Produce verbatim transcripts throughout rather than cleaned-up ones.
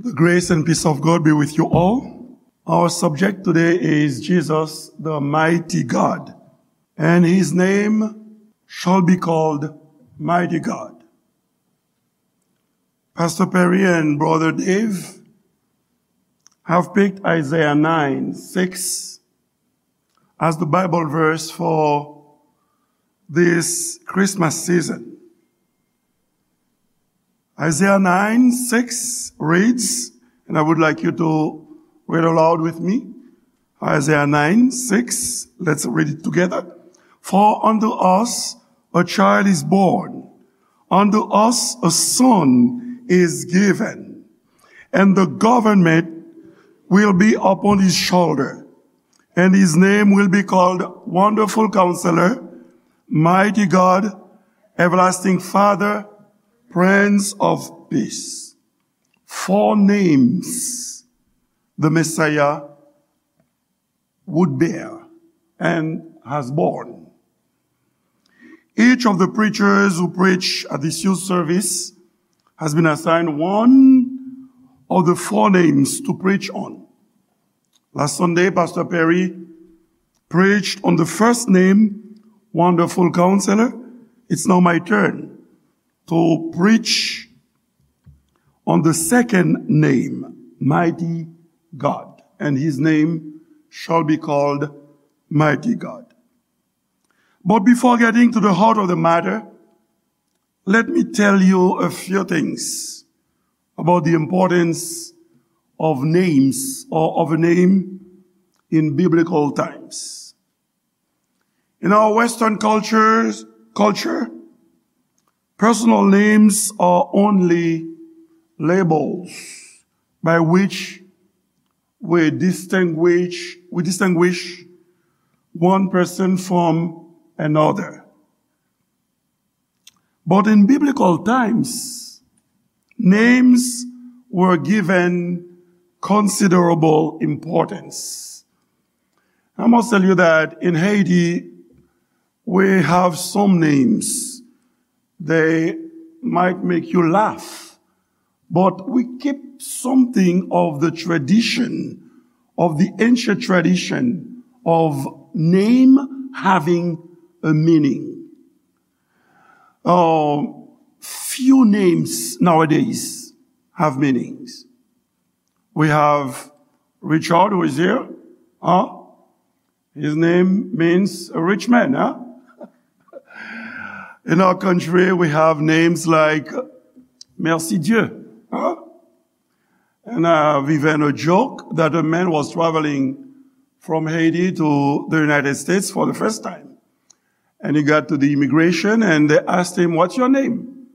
The grace and peace of God be with you all. Our subject today is Jesus, the mighty God, and his name shall be called Mighty God. Pastor Perry and Brother Dave have picked Isaiah nine six as the Bible verse for this Christmas season. Isaiah nine six reads, and I would like you to read aloud with me. Isaiah nine six, let's read it together. For unto us a child is born, unto us a son is given, and the government will be upon his shoulder, and his name will be called Wonderful Counselor, Mighty God, Everlasting Father, Prince of Peace. Four names the Messiah would bear and has borne. Each of the preachers who preach at this youth service has been assigned one of the four names to preach on. Last Sunday, Pastor Perry preached on the first name, Wonderful Counselor. It's now my turn to preach on the second name, Mighty God, and his name shall be called Mighty God. But before getting to the heart of the matter, let me tell you a few things about the importance of names or of a name in biblical times. In our Western cultures, culture, personal names are only labels by which we distinguish, we distinguish one person from another. But in biblical times, names were given considerable importance. I must tell you that in Haiti, we have some names. They might make you laugh, but we keep something of the tradition, of the ancient tradition of name having a meaning. Uh, few names nowadays have meanings. We have Richard, who is here. Huh? His name means a rich man, huh? In our country, we have names like Merci Dieu, huh? And I've even a joke that a man was traveling from Haiti to the United States for the first time. And he got to the immigration and they asked him, "What's your name?"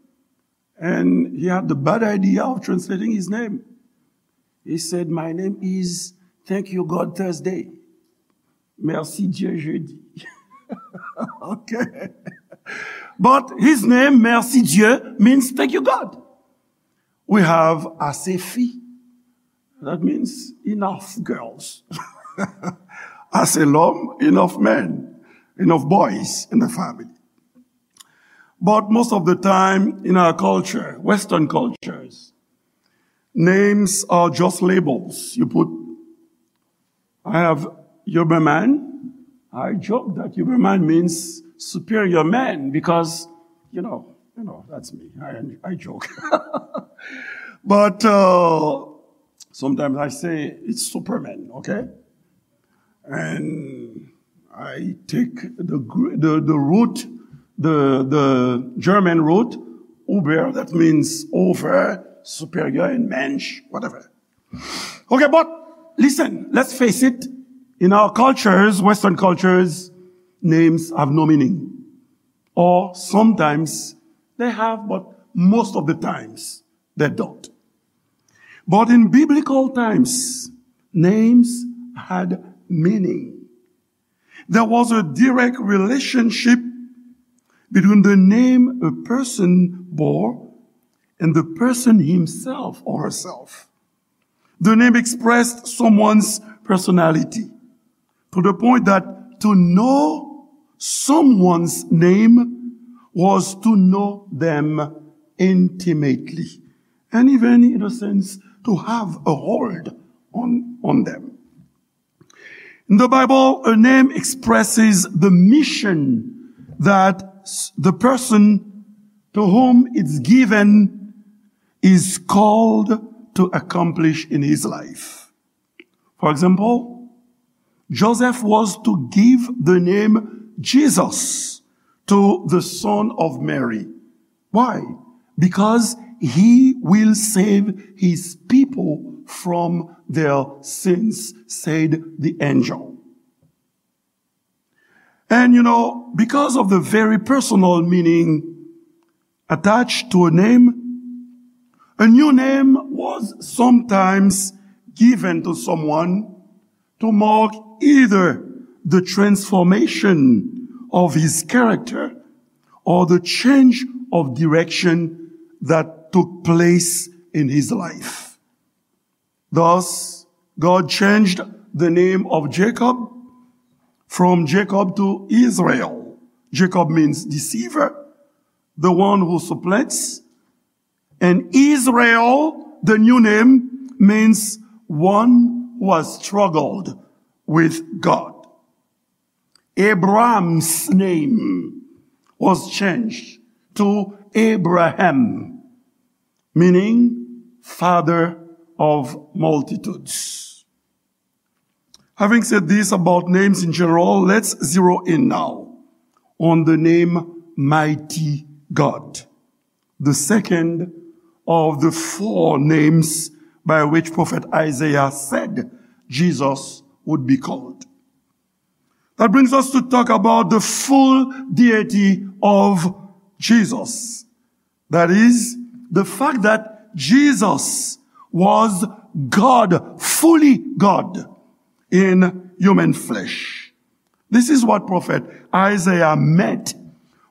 And he had the bad idea of translating his name. He said, "My name is Thank You God Thursday." Merci Dieu jeudi. Okay. But his name, Merci Dieu, means thank you God. We have Ase Fi. That means enough girls. Ase lòm, enough men, enough boys in the family. But most of the time in our culture, Western cultures, names are just labels. You put, I have Huberman. I joke that Huberman means superior man because, you know, you know, that's me. I, I joke. But uh, sometimes I say it's Superman, okay? And I take the, Gr- the, the root, the, the German root, Uber, that means over, superior, and Mensch, whatever. Okay, but listen, let's face it. In our cultures, Western cultures, names have no meaning. Or sometimes they have, but most of the times they don't. But in biblical times, names had meaning. There was a direct relationship between the name a person bore and the person himself or herself. The name expressed someone's personality to the point that to know someone's name was to know them intimately, and even, in a sense, to have a hold on, on them. In the Bible, a name expresses the mission that s- the person to whom it's given is called to accomplish in his life. For example, Joseph was to give the name Jesus to the son of Mary. Why? Because he will save his people from their sins, said the angel. And you know, because of the very personal meaning attached to a name, a new name was sometimes given to someone to mark either the transformation of his character or the change of direction that took place in his life. Thus, God changed the name of Jacob from Jacob to Israel. Jacob means deceiver, the one who supplants. And Israel, the new name, means one who has struggled with God. Abraham's name was changed to Abraham, meaning father of multitudes. Having said this about names in general, let's zero in now on the name Mighty God, the second of the four names by which Prophet Isaiah said Jesus would be called. That brings us to talk about the full deity of Jesus. That is, the fact that Jesus was God, fully God, in human flesh. This is what prophet Isaiah meant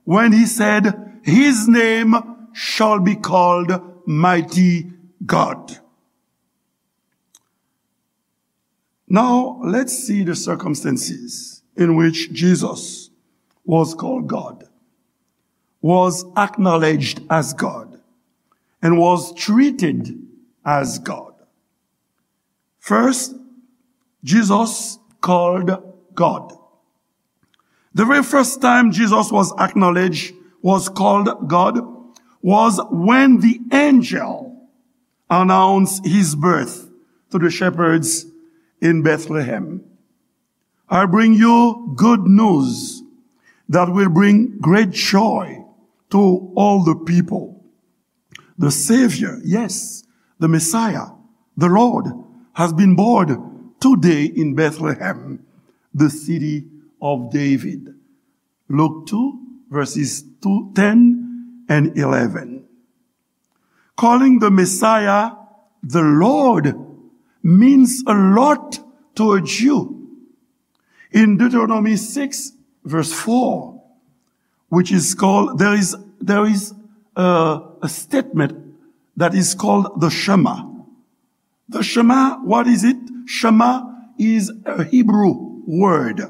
when he said, "His name shall be called Mighty God." Now, let's see the circumstances in which Jesus was called God, was acknowledged as God, and was treated as God. First, Jesus called God. The very first time Jesus was acknowledged, was called God, was when the angel announced his birth to the shepherds in Bethlehem. "I bring you good news that will bring great joy to all the people. The Savior, yes, the Messiah, the Lord, has been born today in Bethlehem, the city of David." Luke two, verses two, ten and eleven. Calling the Messiah the Lord means a lot to a Jew. In Deuteronomy six, verse four, which is called, there is, there is a, a statement that is called the Shema. The Shema, what is it? Shema is a Hebrew word.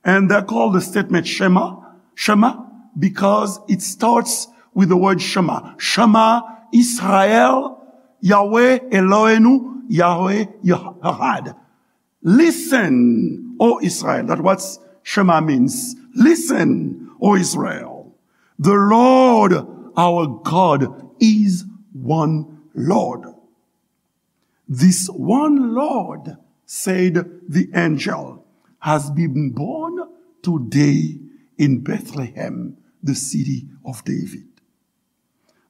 And they're called the statement Shema, Shema, because it starts with the word Shema. Shema Israel, Yahweh Eloheinu, Yahweh Echad. "Listen, O Israel." That's what Shema means. "Listen, O Israel. The Lord our God is one Lord." "This one Lord," said the angel, "has been born today in Bethlehem, the city of David."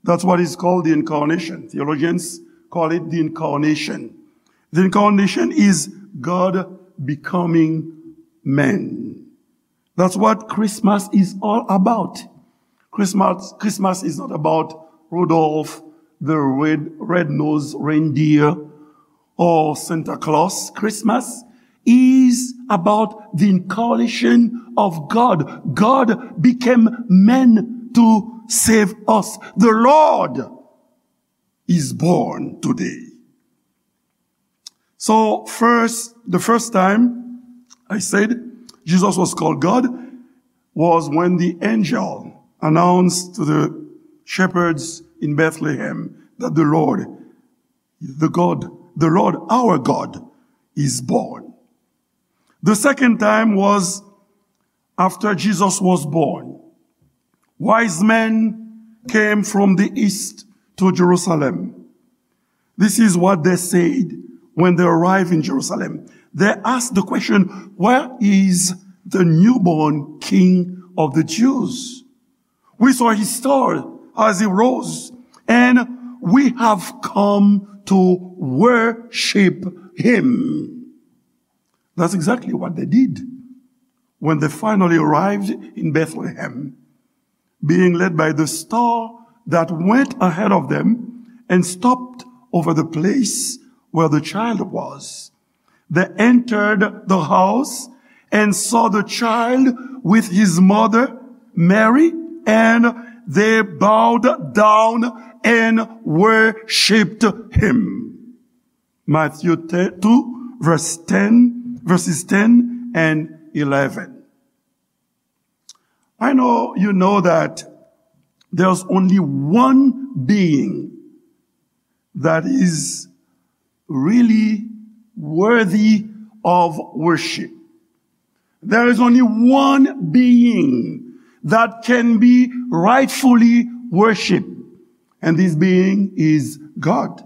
That's what is called the incarnation. Theologians call it the incarnation. The incarnation is God becoming man. That's what Christmas is all about. Christmas, Christmas is not about Rudolph the red, red-nosed reindeer or Santa Claus. Christmas is about the incarnation of God. God became man to save us. The Lord is born today. So first, the first time I said Jesus was called God was when the angel announced to the shepherds in Bethlehem that the Lord the God, the Lord our God is born. The second time was after Jesus was born. Wise men came from the east to Jerusalem. This is what they said when they arrived in Jerusalem. They asked the question, "Where is the newborn king of the Jews? We saw his star as he rose, and we have come to worship him." That's exactly what they did when they finally arrived in Bethlehem, being led by the star that went ahead of them and stopped over the place where the child was. They entered the house and saw the child with his mother, Mary, and they bowed down and worshipped him. Matthew two, verse ten, verses ten and eleven. I know you know that there's only one being that is really worthy of worship. There is only one being that can be rightfully worshiped, and this being is God.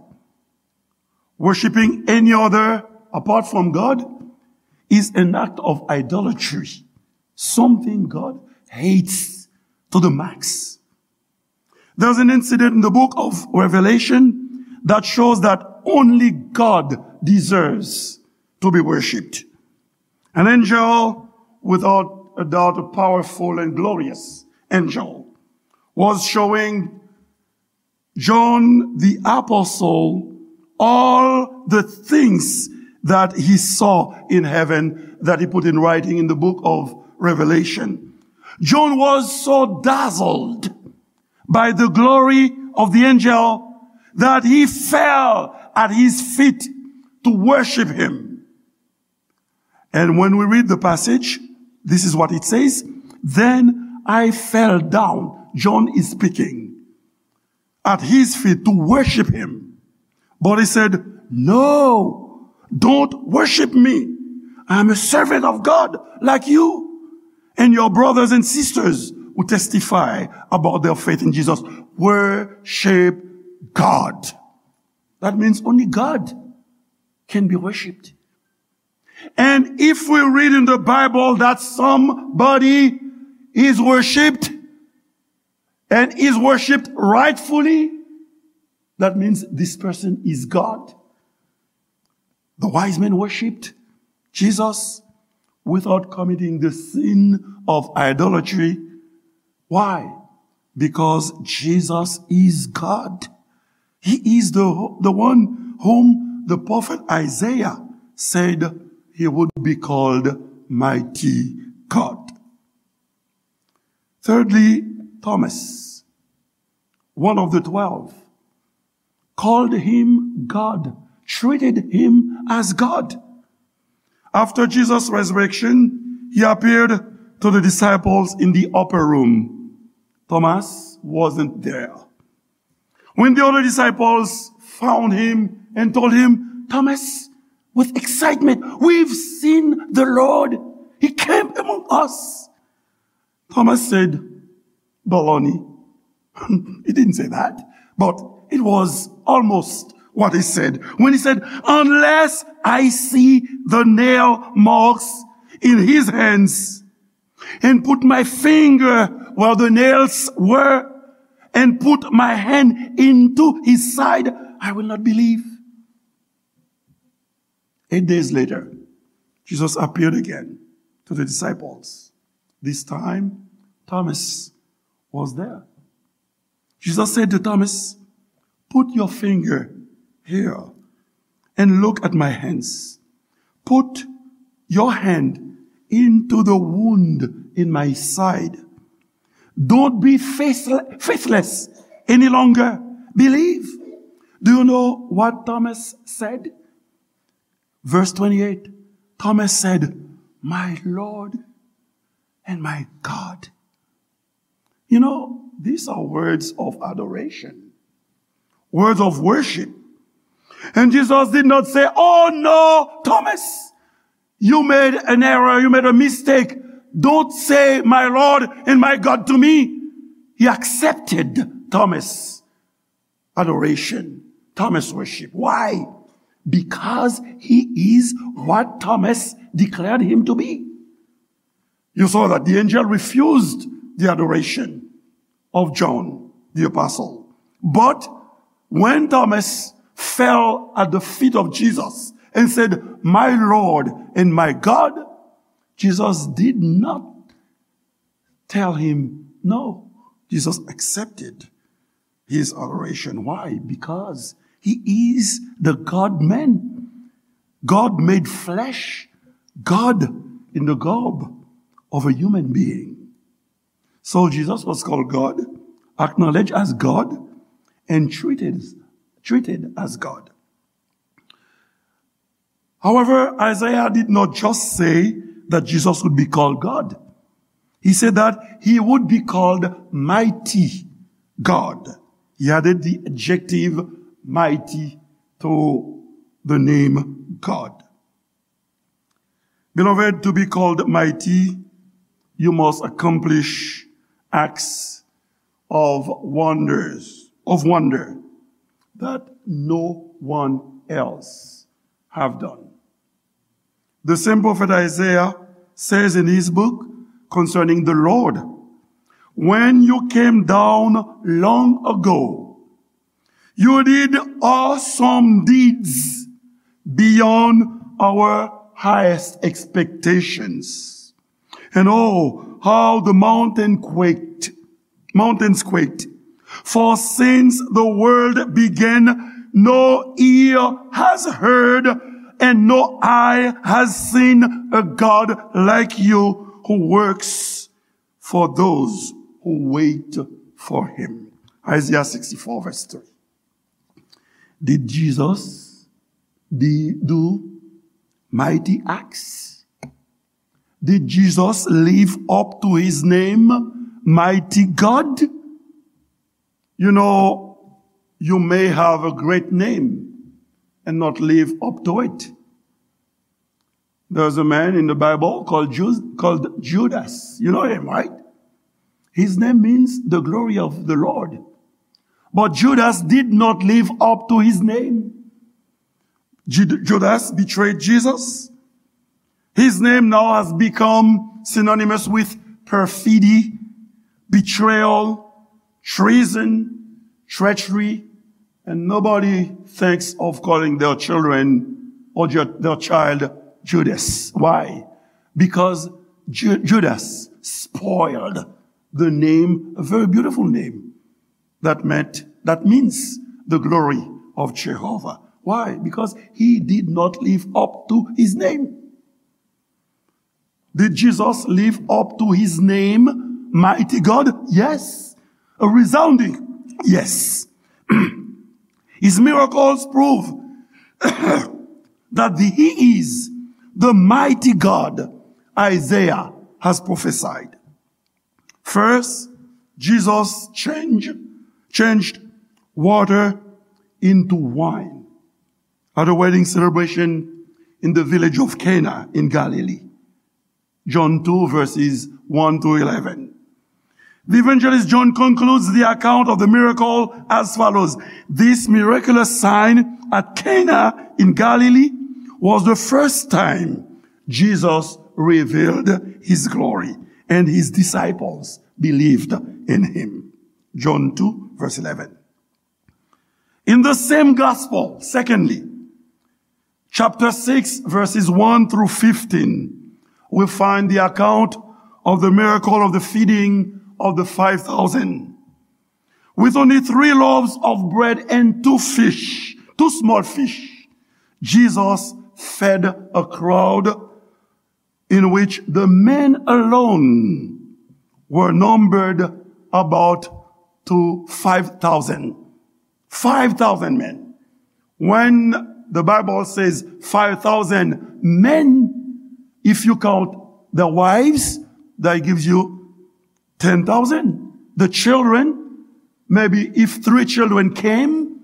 Worshiping any other apart from God is an act of idolatry, something God hates to the max. There's an incident in the book of Revelation that shows that only God deserves to be worshipped. An angel, without a doubt, a powerful and glorious angel, was showing John the Apostle all the things that he saw in heaven that he put in writing in the book of Revelation. John was so dazzled by the glory of the angel that he fell at his feet to worship him. And when we read the passage, this is what it says, "Then I fell down," John is speaking, "at his feet to worship him. But he said, 'No, don't worship me. I'm a servant of God like you and your brothers and sisters who testify about their faith in Jesus.'" Worship God. That means only God can be worshipped. And if we read in the Bible that somebody is worshipped and is worshipped rightfully, that means this person is God. The wise men worshipped Jesus without committing the sin of idolatry. Why? Because Jesus is God. He is the, the one whom the prophet Isaiah said he would be called Mighty God. Thirdly, Thomas, one of the twelve, called him God, treated him as God. After Jesus' resurrection, he appeared to the disciples in the upper room. Thomas wasn't there. When the other disciples found him and told him, Thomas, with excitement, "We've seen the Lord. He came among us." Thomas said, "Baloney." He didn't say that, but it was almost what he said when he said, "Unless I see the nail marks in his hands and put my finger where the nails were and put my hand into his side, I will not believe." Eight days later, Jesus appeared again to the disciples. This time, Thomas was there. Jesus said to Thomas, "Put your finger here and look at my hands. Put your hand into the wound in my side. Don't be faithle-, faithless any longer. Believe." Do you know what Thomas said? Verse twenty-eight, Thomas said, "My Lord and my God." You know, these are words of adoration, words of worship. And Jesus did not say, "Oh no, Thomas, you made an error, you made a mistake. Don't say, 'My Lord and my God' to me.'" He accepted Thomas' adoration, Thomas' worship. Why? Because he is what Thomas declared him to be. You saw that the angel refused the adoration of John the Apostle. But when Thomas fell at the feet of Jesus and said, "My Lord and my God," Jesus did not tell him no. Jesus accepted his adoration. Why? Because he is the God-man. God made flesh. God in the garb of a human being. So Jesus was called God, acknowledged as God, and treated, treated as God. However, Isaiah did not just say that Jesus would be called God. He said that he would be called mighty God. He added the adjective mighty to the name God. Beloved, to be called mighty, you must accomplish acts of wonders, of wonder that no one else have done. The same prophet Isaiah says in his book concerning the Lord, "When you came down long ago, you did awesome deeds beyond our highest expectations. And oh, how the mountain quaked, mountains quaked. For since the world began, no ear has heard and no eye has seen a God like you who works for those who wait for him." Isaiah sixty-four, verse three. Did Jesus di-, do mighty acts? Did Jesus live up to his name, mighty God? You know, you may have a great name and not live up to it. There's a man in the Bible called Ju-, called Judas. You know him, right? His name means the glory of the Lord. But Judas did not live up to his name. Ju-, Judas betrayed Jesus. His name now has become synonymous with perfidy, betrayal, treason, treachery, and nobody thinks of calling their children or ju-, their child Judas. Why? Because Ju-, Judas spoiled the name, a very beautiful name, that meant, that means the glory of Jehovah. Why? Because he did not live up to his name. Did Jesus live up to his name, mighty God? Yes. A resounding yes. His miracles prove that the, he is the mighty God Isaiah has prophesied. First, Jesus changed, changed water into wine at a wedding celebration in the village of Cana in Galilee. John two, verses one to eleven. The evangelist John concludes the account of the miracle as follows. This miraculous sign at Cana in Galilee was the first time Jesus revealed his glory, and his disciples believed in him. John two, verse eleven. In the same gospel, secondly, chapter six, verses one through fifteen, we find the account of the miracle of the feeding of the five thousand. With only three loaves of bread and two fish, two small fish, Jesus fed a crowd in which the men alone were numbered about to five thousand. Five thousand men. When the Bible says five thousand men, if you count the wives, that gives you ten thousand. The children, maybe if three children came,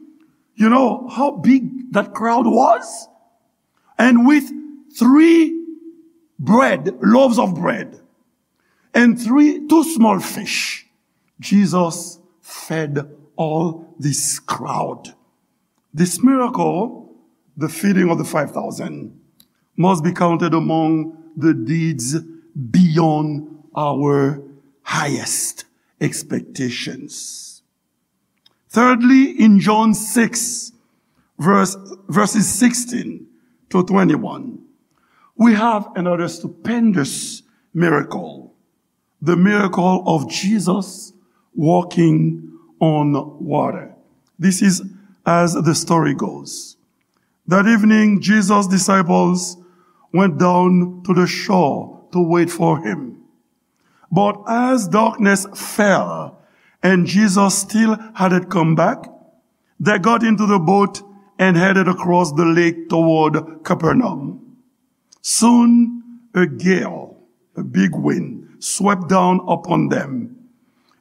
you know how big that crowd was, and with three bread, loaves of bread, and three, two small fish, Jesus fed all this crowd. This miracle, the feeding of the five thousand, must be counted among the deeds beyond our highest expectations. Thirdly, in John six, verse, verses sixteen to twenty-one, we have another stupendous miracle, the miracle of Jesus walking on water. This is as the story goes. That evening, Jesus' disciples went down to the shore to wait for him. But as darkness fell and Jesus still hadn't come back, they got into the boat and headed across the lake toward Capernaum. Soon a gale, a big wind, swept down upon them,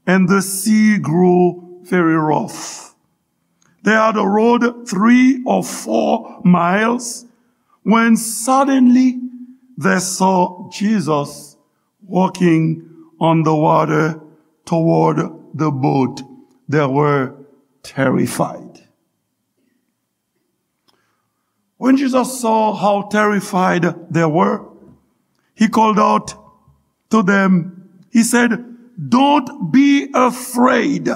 and the sea grew very rough. They had rowed three or four miles when suddenly they saw Jesus walking on the water toward the boat. They were terrified. When Jesus saw how terrified they were, he called out to them. He said, "Don't be afraid.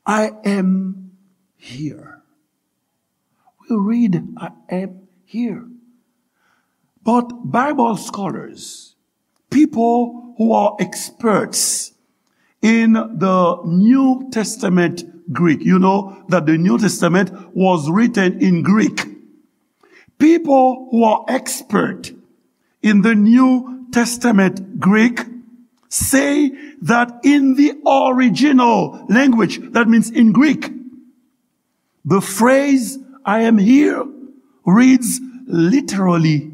I am here." We read, "I am here." But Bible scholars, people who are experts in the New Testament Greek, you know that the New Testament was written in Greek. People who are expert in the New Testament Greek say that in the original language, that means in Greek, the phrase "I am here" reads literally,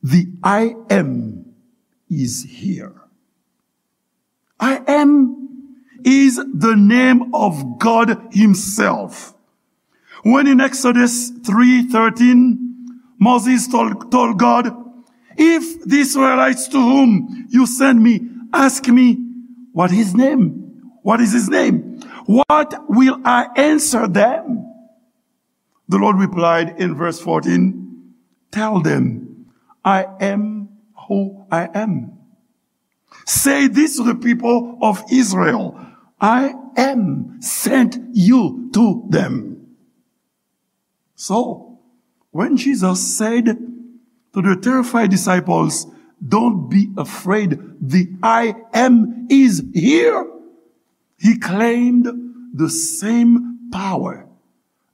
"The I am is here." "I am" is the name of God himself. When in Exodus three thirteen, Moses told, told God, "If the Israelites to whom you send me ask me what his name, what is his name, what will I answer them?" The Lord replied in verse fourteen, "Tell them, I am who I am." Say this to the people of Israel, I am sent you to them. So, when Jesus said to the terrified disciples, "Don't be afraid, the I am is here," he claimed the same power,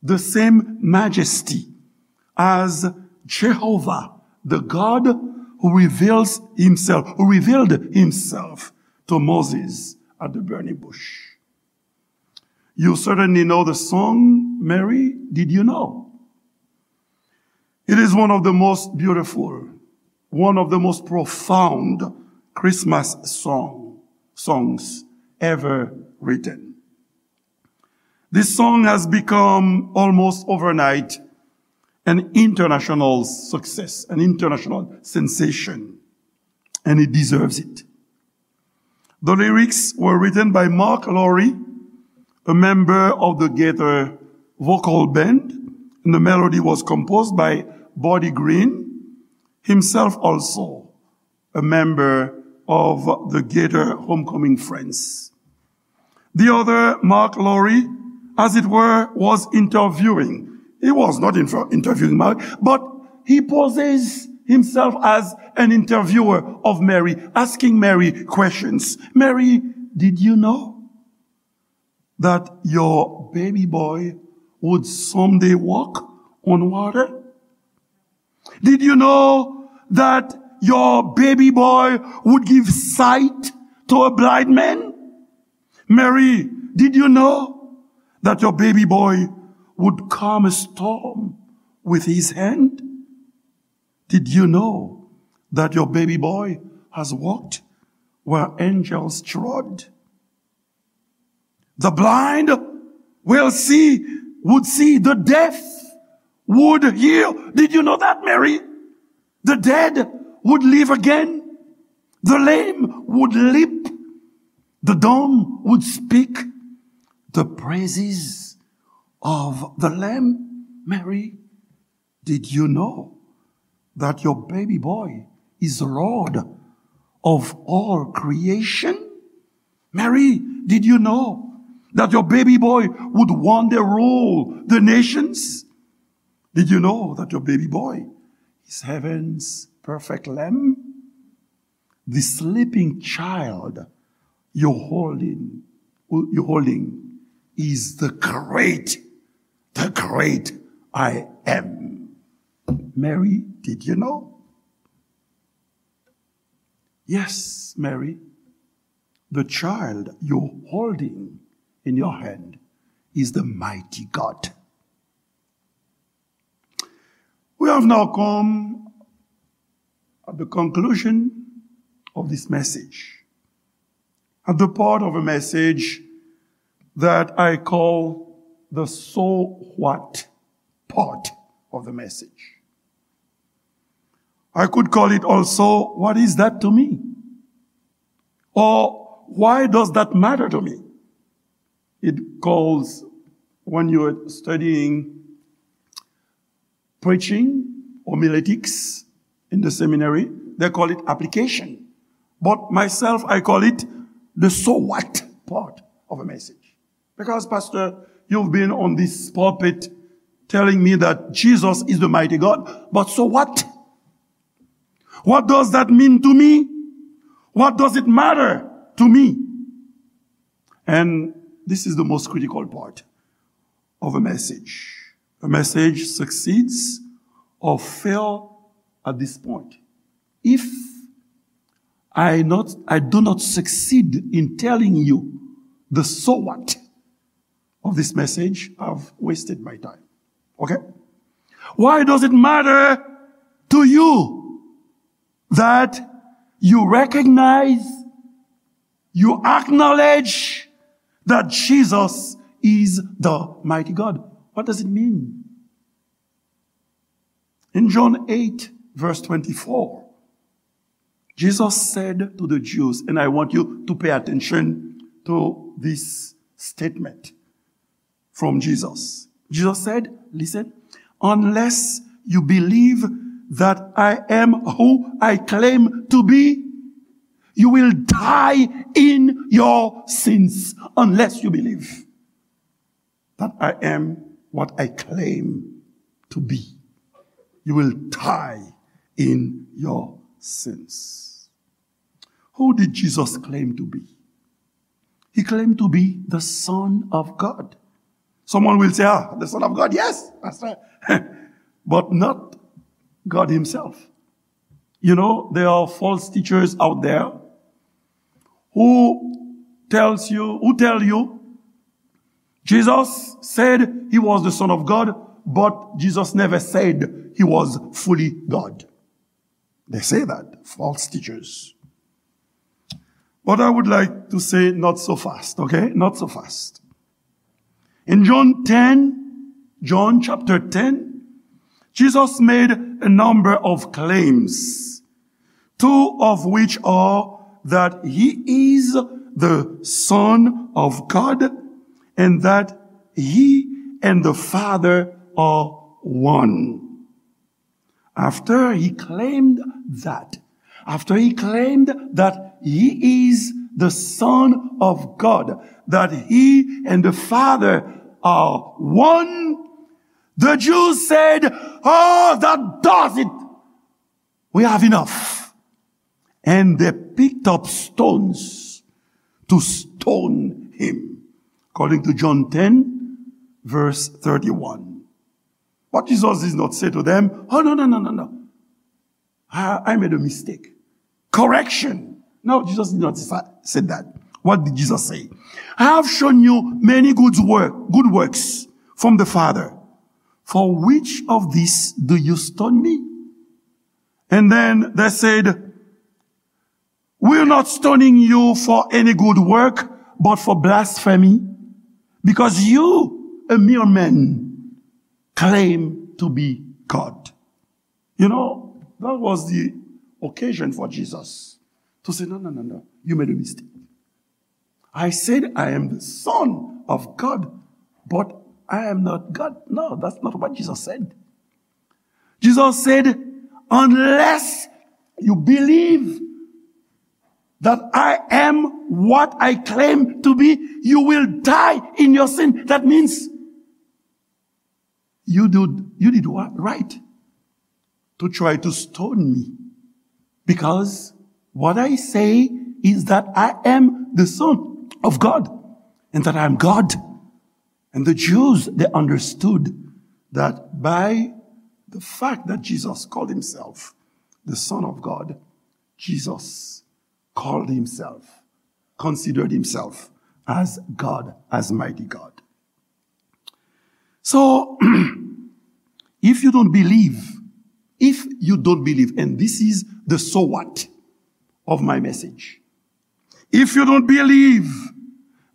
the same majesty as Jehovah, the God who reveals himself, who revealed himself to Moses at the burning bush. You certainly know the song, Mary, Did You Know? It is one of the most beautiful, one of the most profound Christmas song, songs ever written. This song has become almost overnight an international success, an international sensation, and it deserves it. The lyrics were written by Mark Lowry, a member of the Gaither Vocal Band, and the melody was composed by Buddy Green, himself also a member of the Gaither Homecoming Friends. The other, Mark Lowry, as it were, was interviewing. He was not inter-, interviewing Mary, but he poses himself as an interviewer of Mary, asking Mary questions. "Mary, did you know that your baby boy would someday walk on water? Did you know that your baby boy would give sight to a blind man? Mary, did you know that your baby boy would calm a storm with his hand? Did you know that your baby boy has walked where angels trod? The blind will see, would see, the deaf would heal. Did you know that, Mary? The dead would live again. The lame would leap. The dumb would speak the praises of the Lamb. Mary, did you know that your baby boy is Lord of all creation? Mary, did you know that your baby boy would one day rule the nations? Did you know that your baby boy is heaven's perfect lamb? The sleeping child you're holding, you're holding is the great, the great I am. Mary, did you know? Yes, Mary, the child you're holding in your hand is the mighty God. We have now come at the conclusion of this message, at the part of a message that I call the "so what" part of the message. I could call it also, "What is that to me?" Or, "Why does that matter to me?" It calls, when you're studying preaching, homiletics in the seminary, they call it application. But myself, I call it the "so what" part of a message. Because, Pastor, you've been on this pulpit telling me that Jesus is the mighty God, but so what? What does that mean to me? What does it matter to me? And this is the most critical part of a message. A message succeeds or fail at this point. If I not, I do not succeed in telling you the "so what" of this message, I've wasted my time. Okay? Why does it matter to you that you recognize, you acknowledge that Jesus is the mighty God? What does it mean? In John eight, verse twenty-four, Jesus said to the Jews, and I want you to pay attention to this statement from Jesus. Jesus said, listen, "Unless you believe that I am who I claim to be, you will die in your sins." Unless you believe that I am what I claim to be, you will die in your sins. Who did Jesus claim to be? He claimed to be the Son of God. Someone will say, "Ah, the Son of God, yes, Pastor," but not God himself. You know, there are false teachers out there who tells you, who tell you Jesus said he was the Son of God, but Jesus never said he was fully God. They say that, false teachers. But I would like to say, not so fast, okay? Not so fast. In John ten, John chapter ten, Jesus made a number of claims, two of which are that he is the Son of God and that he and the Father are one. After he claimed that, after he claimed that he is the Son of God, that he and the Father are one, the Jews said, "Oh, that does it. We have enough." And they picked up stones to stone him. According to John ten, verse thirty-one. But Jesus did not say to them, "Oh, no, no, no, no, no. I, I made a mistake. Correction." No, Jesus did not sa-, say that. What did Jesus say? "I have shown you many good work, good works from the Father. For which of these do you stone me?" And then they said, "We're not stoning you for any good work, but for blasphemy, because you, a mere man, claim to be God. You know, that was the occasion for Jesus to say, "No, no, no, no, you made a mistake. I said I am the Son of God, but I am not God." No, that's not what Jesus said. Jesus said, "Unless you believe that I am what I claim to be, you will die in your sin." That means you did, you did what? Right to try to stone me, because what I say is that I am the Son of God, and that I am God. And the Jews, they understood that by the fact that Jesus called himself the Son of God, Jesus called himself, considered himself as God, as mighty God. So, if you don't believe, if you don't believe, and this is the so what of my message, if you don't believe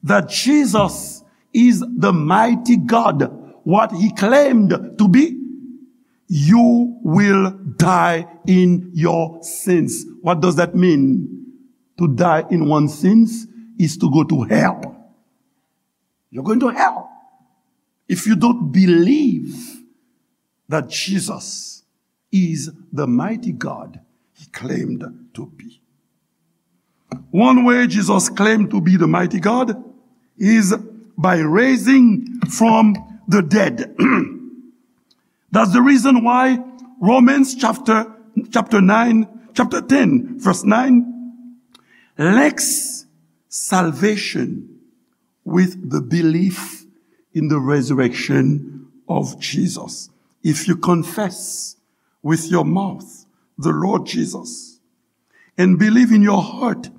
that Jesus is the mighty God, what he claimed to be, you will die in your sins. What does that mean? To die in one's sins is to go to hell. You're going to hell if you don't believe that Jesus is the mighty God he claimed to be. One way Jesus claimed to be the mighty God is by raising from the dead. That's the reason why Romans chapter, chapter nine, chapter ten, verse nine, links salvation with the belief in the resurrection of Jesus. If you confess with your mouth the Lord Jesus and believe in your heart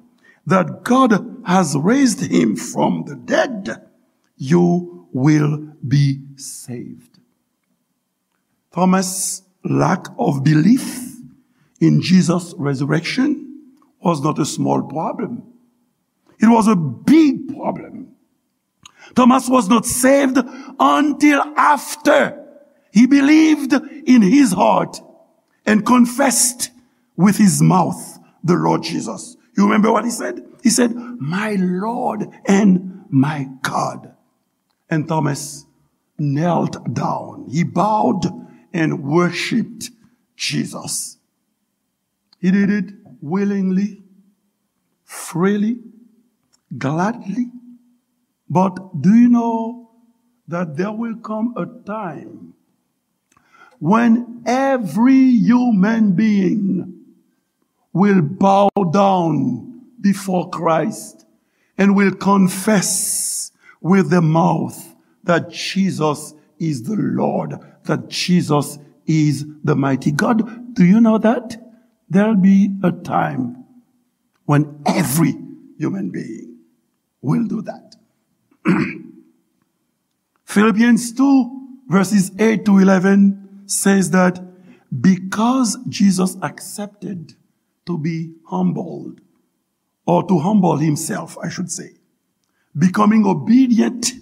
that God has raised him from the dead, you will be saved. Thomas' lack of belief in Jesus' resurrection was not a small problem. It was a big problem. Thomas was not saved until after he believed in his heart and confessed with his mouth the Lord Jesus. You remember what he said? He said, "My Lord and my God." And Thomas knelt down. He bowed and worshiped Jesus. He did it willingly, freely, gladly. But do you know that there will come a time when every human being will bow down before Christ and will confess with the mouth that Jesus is the Lord, that Jesus is the mighty God? Do you know that? There'll be a time when every human being will do that. Philippians two, verses eight to eleven says that because Jesus accepted to be humbled, or to humble himself, I should say, becoming obedient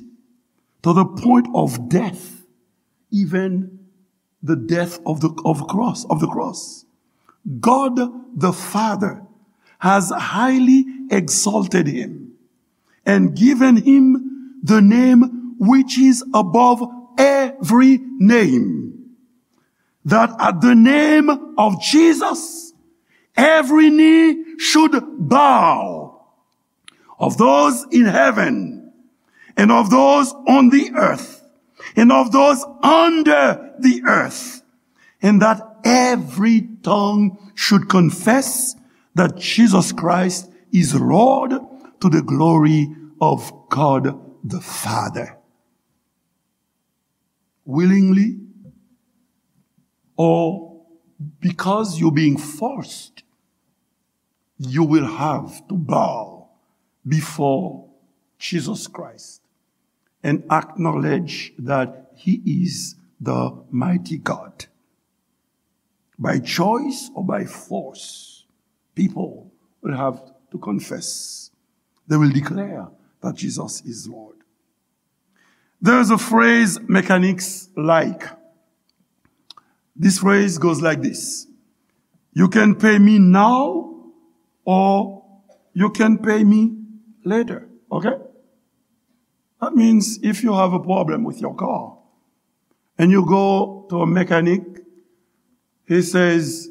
to the point of death, even the death of the, of cross, of the cross. God the Father has highly exalted him and given him the name which is above every name, that at the name of Jesus every knee should bow, of those in heaven, and of those on the earth, and of those under the earth, and that every tongue should confess that Jesus Christ is Lord, to the glory of God the Father. Willingly, or because you're being forced, you will have to bow before Jesus Christ and acknowledge that he is the mighty God. By choice or by force, people will have to confess. They will declare that Jesus is Lord. There's a phrase mechanics like. This phrase goes like this. You can pay me now or you can pay me later. Okay? That means if you have a problem with your car and you go to a mechanic, he says,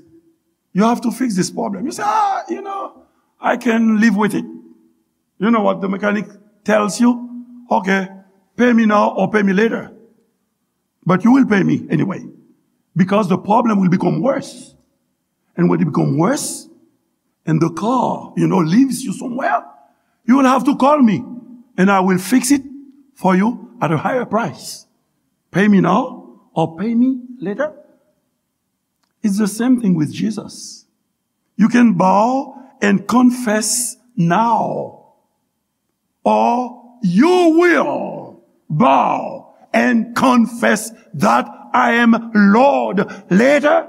"You have to fix this problem." You say, "Ah, you know, I can live with it." You know what the mechanic tells you? "Okay, pay me now or pay me later. But you will pay me anyway, because the problem will become worse. And when it become worse, and the car, you know, leaves you somewhere, you will have to call me, and I will fix it for you at a higher price. Pay me now or pay me later." It's the same thing with Jesus. You can bow and confess now, or you will bow and confess that I am Lord later.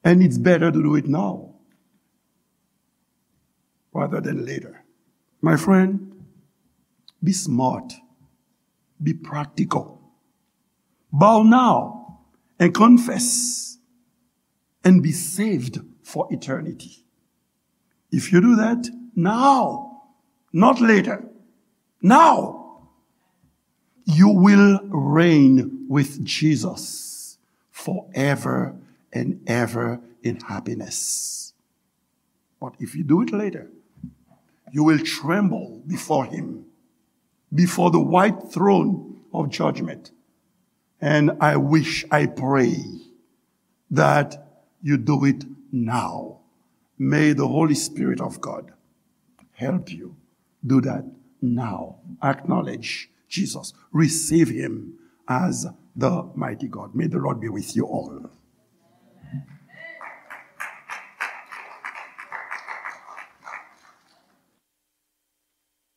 And it's better to do it now rather than later. My friend, be smart, be practical. Bow now and confess and be saved for eternity. If you do that now, not later, now, you will reign with Jesus forever and ever in happiness. But if you do it later, you will tremble before him, before the white throne of judgment. And I wish, I pray that you do it now. May the Holy Spirit of God help you do that now. Acknowledge Jesus. Receive him as the mighty God. May the Lord be with you all.